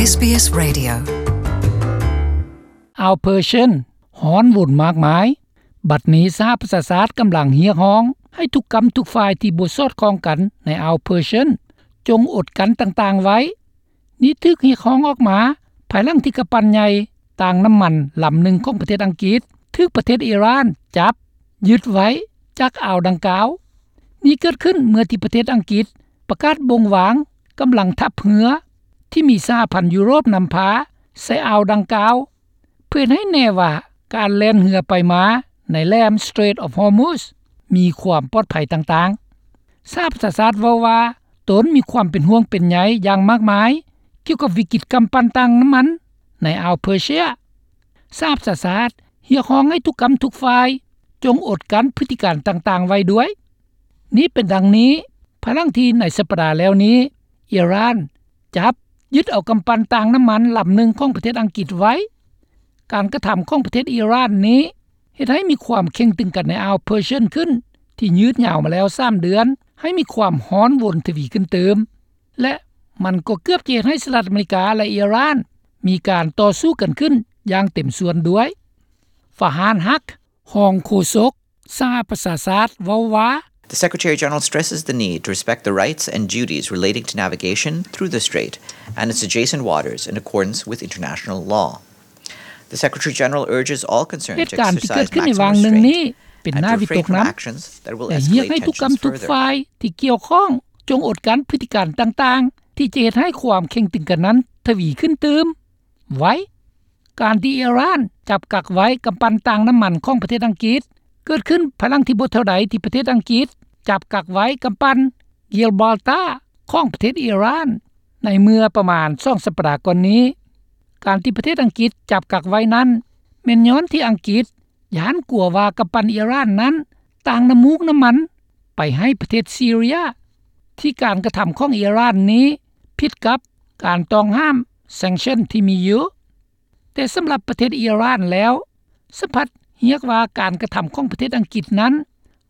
ເອສບີເອສ Radio. ອ່າວເພີເຊຍນຮ້ອນວົນມາກມາຍ. ບັດນີ້ສະຫະປະຊາຊາດກຳລັງຮຽກຮ້ອງໃຫ້ທຸກກ້ຳທຸກຝ່າຍທີ່ບໍ່ສອດຄ່ອງກັນໃນອ່າວເພີເຊຍນ ຈົ່ງອົດກັ້ນຕ່າງໆໄວ້. ນີ້ຖືກຮຽກຮ້ອງອອກມາ ພາຍຫຼັງທີ່ກຳປັ່ນໃຫຍ່ຕາງນ້ຳມັນລຳໜຶ່ງຂອງປະເທດອັງກິດ ຖືກປະເທດອີຣານຈັບຍຶດໄວ້ຈາກອ່າວດັ່ງກ່າວ. ນີ້ເກີດຂຶ້ນເມື່ອທີ່ປະເທດອັງກິດປະກາດບົ່ງວາງກຳລັງທັບເຮືອ ທີ່ມີສະຫະພັນຢູໂຣບນຳພາໃສ່ອ່າວດັ່ງກ່າວ ເພື່ອເຮັດໃຫ້ແນ່ວ່າການແລ່ນເຮືອໄປມາໃນແຫຼມ Strait of Hormuz ມີຄວາມປອດໄພຕ່າງໆ. ສະຫະປະຊາຊາດເວົ້າວ່າ ຕົນມີຄວາມເປັນຫ່ວງເປັນໃຍຢ່າງມາກມາຍ ກ່ຽວກັບວິກິດກຳປັ່ນຕາງນ້ຳມັນໃນອ່າວເພີເຊຍ. ສະຫະປະຊາຊາດຮຽກຮ້ອງໃຫ້ທຸກກ້ຳທຸກຝ່າຍ ຈົ່ງອົດກັ້ນພຶດຕິການຕ່າງໆໄວ້ດ້ວຍ. ນີ້ເປັນດັ່ງນີ້ ພາຍຫຼັງທີ່ໃນສັບປະດາແລ້ວນີ້ ອີຣານຈັບຍຶດເອົາກຳປັ່ນຕາງນ້ຳມັນລຳໜຶ່ງຂອງປະເທດອັງກິດໄວ້. ການກະທຳຂອງປະເທດອີຣານນີ້ ເຮັດໃຫ້ມີຄວາມເຄັ່ງຕຶງກັນໃນອ່າວເພີເຊຍນຂຶ້ນ ທີ່ຍືດຍາວມາແລ້ວສາມເດືອນ ໃຫ້ມີຄວາມຮ້ອນວົນທະວີຂຶ້ນຕື່ມ ແລະ ມັນກໍເກືອບຈະເຮັດໃຫ້ສະຫະລັດອາເມລິກາ ແລະ ອີຣານ ມີການຕໍ່ສູ້ກັນຂຶ້ນຢ່າງເຕັມສ່ວນດ້ວຍ. ຟາຮານ ຮັກ ຮອງໂຄສົກສະຫະປະຊາຊາດເວົ້າວ່າ The Secretary-General stresses the need to respect the rights and duties relating to navigation through the strait and its adjacent waters in accordance with international law. The Secretary-General urges all concerned to exercise maximum restraint and to refrain from actions that will escalate tensions further. ເຫດການທີ່ເກີດຂຶ້ນໃນວາງໜຶ່ງນີ້ ເປັນໜ້າວິຕົກນຳ ແລະ ຮຽກໃຫ້ທຸກກ້ຳທຸກຝ່າຍທີ່ກ່ຽວຂ້ອງ ຈົ່ງອົດກັ້ນພຶດຕິການຕ່າງໆ ທີ່ຈະເຮັດໃຫ້ຄວາມເຄັ່ງຕຶງກັນນັ້ນທະວີຂຶ້ນຕື່ມໄວ້. ການທີ່ອີຣານຈັບກັກໄວ້ກຳປັ່ນຕາງນ້ຳມັນຂອງປະເທດອັງກິດ ເກີດຂຶ້ນພາຍຫຼັງທີ່ບໍ່ເທົ່າໃດທີ່ປະເທດອັງກິດຈັບກັກໄວ້ກຳປັ່ນ Gibraltar ຂອງປະເທດອີຣານ ໃນເມື່ອປະມານສອງສັບປະດາກ່ອນນີ້. ການທີ່ປະເທດອັງກິດຈັບກັກໄວ້ນັ້ນ ແມ່ນຍ້ອນທີ່ອັງກິດຢ້ານກົວວ່າກຳປັ່ນອີຣານນັ້ນຕາງນ້ຳມູກນ້ຳມັນໄປໃຫ້ປະເທດຊີເຣຍ ທີ່ການກະທຳຂອງອີຣານນີ້ຜິດກັບການຕ້ອງຫ້າມ sanction ທີ່ມີຢູ່. ແຕ່ສຳລັບປະເທດອີຣານແລ້ວ ສະພັດຮຽກວ່າການກະທຳຂອງປະເທດອັງກິດນັ້ນ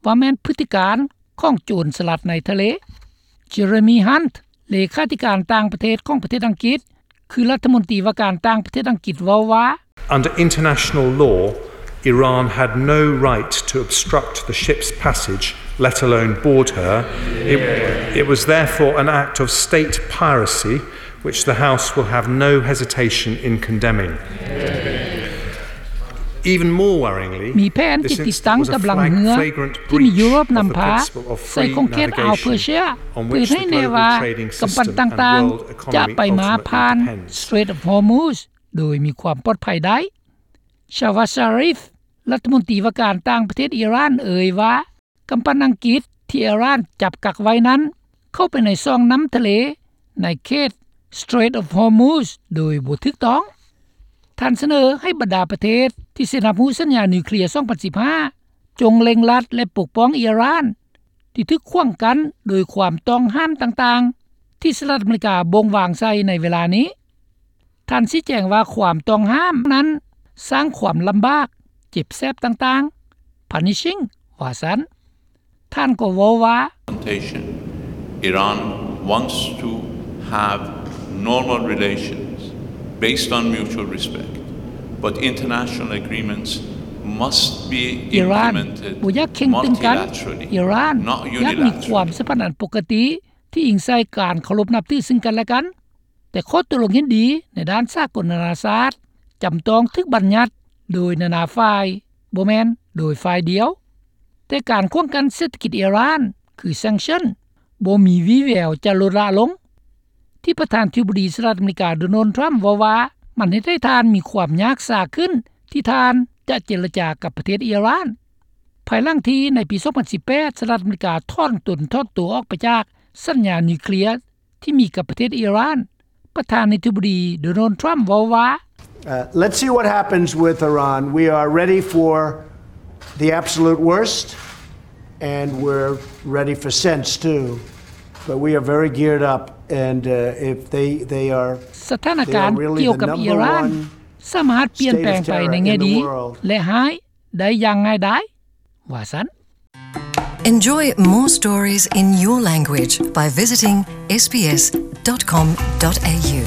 ວ່າແມ່ນພຶດຕິການຂອງໂຈນສະຫຼັດໃນທະເລ. Jeremy Hunt ເລຂາທິການຕ່າງປະເທດຂອງປະເທດອັງກິດ ຄືລັດຖະມົນຕີວ່າການຕ່າງປະເທດອັງກິດເວົ້າວ່າ Under international law, Iran had no right to obstruct the ship's passage, let alone board her. It, it was therefore an act of state piracy, which the House will have no hesitation in condemning. Even more worryingly, ມີແຜນທີ່ຕິດຕັ້ງກຳລັງເຮືອທີ່ມີຢູໂຣບນຳພາໃສ່ຂົງເຂດອ່າວເປີເຊຍ ເພື່ອເຮັດໃຫ້ແນ່ວ່າກຳປັ່ນຕ່າງໆຈະໄປມາຜ່ານ Strait of Hormuz ໂດຍມີຄວາມປອດໄພໄດ້. Shehbaz Sharif ລັດຖະມົນຕີວ່າການຕ່າງປະເທດອີຣານເອີ່ຍວ່າ ກຳປັ່ນອັງກິດທີ່ອີຣານຈັບກັກໄວ້ນັ້ນ ເຂົ້າໄປໃນຊ່ອງນ້ຳທະເລໃນເຂດ Strait of Hormuz ໂດຍບໍ່ຖືກຕ້ອງ. ທ່ານສະເໜີໃຫ້ບັນດາປະເທດທີ່ເຊັນຮັບຮູ້ສັນຍານິວເຄລຍສອງພັນສິບຫ້າ ຈົ່ງເລັ່ງລັດ ແລະ ປົກປ້ອງອີຣານ ທີ່ຖືກຂວາງກັ້ນໂດຍຄວາມຕ້ອງຫ້າມຕ່າງໆ ທີ່ສະຫະລັດອາເມລິກາບົ່ງວາງໃສ່ໃນເວລານີ້. ທ່ານຊີ້ແຈງວ່າຄວາມຕ້ອງຫ້າມນັ້ນສ້າງຄວາມລຳບາກ, ເຈັບແສບຕ່າງໆ, punishing ວ່າຊັ້ນ. ທ່ານກໍເວົ້າວ່າ Iran wants to have normal relations based on mutual respect, but international agreements must be implemented multilaterally, not unilaterally. ອີຣານບໍ່ຢາກເຄັ່ງຕຶງກັນ. ອີຣານຢາກມີຄວາມສຳພັນອັນປົກກະຕິ ທີ່ອີງໃສ່ການເຄົາລົບນັບຖືຊຶ່ງກັນແລະກັນ, ແຕ່ຂໍ້ຕົກລົງເຫັນດີໃນດ້ານສາກົນນານາຊາດ ຈຳຕ້ອງຖືກບັນຍັດໂດຍນານາຝ່າຍ, ບໍ່ແມ່ນໂດຍຝ່າຍດຽວ. ແຕ່ການຂວາງກັ້ນເສດຖະກິດອີຣານ ຄື sanction ບໍ່ມີວີ່ແວວຈະລົດລະລົງ, ທີ່ປະທານທິບໍດີສະຫະລັດອາເມລິກາ ໂດນັລ ທຣຳ ເວົ້າວ່າ ມັນເຮັດໃຫ້ທ່ານມີຄວາມຍາກຊາຂຶ້ນ ທີ່ທ່ານຈະເຈລະຈາກັບປະເທດອີຣານ. ພາຍຫຼັງທີ່ໃນປີສອງພັນສິບແປດ ສະຫະລັດອາເມລິກາຖອນຕົນຖອນຕົວອອກໄປຈາກສັນຍານິວເຄລຍ ທີ່ມີກັບປະເທດອີຣານ, ປະທານາທິບໍດີ ໂດນັລ ທຣຳ ເວົ້າວ່າ Uh, let's see what happens with Iran. We are ready for the absolute worst, and we're ready for sense too. But we are very geared up, and, uh, if they, they are, ສະຖານະການກ່ຽວກັບອີຣານ ສາມາດປ່ຽນແປງໄປໃນແງ່ດີ ແລະ ຮ້າຍໄດ້ຢ່າງງ່າຍດາຍ ວ່າຊັ້ນ. Enjoy more stories in your language by visiting S B S dot com dot A U.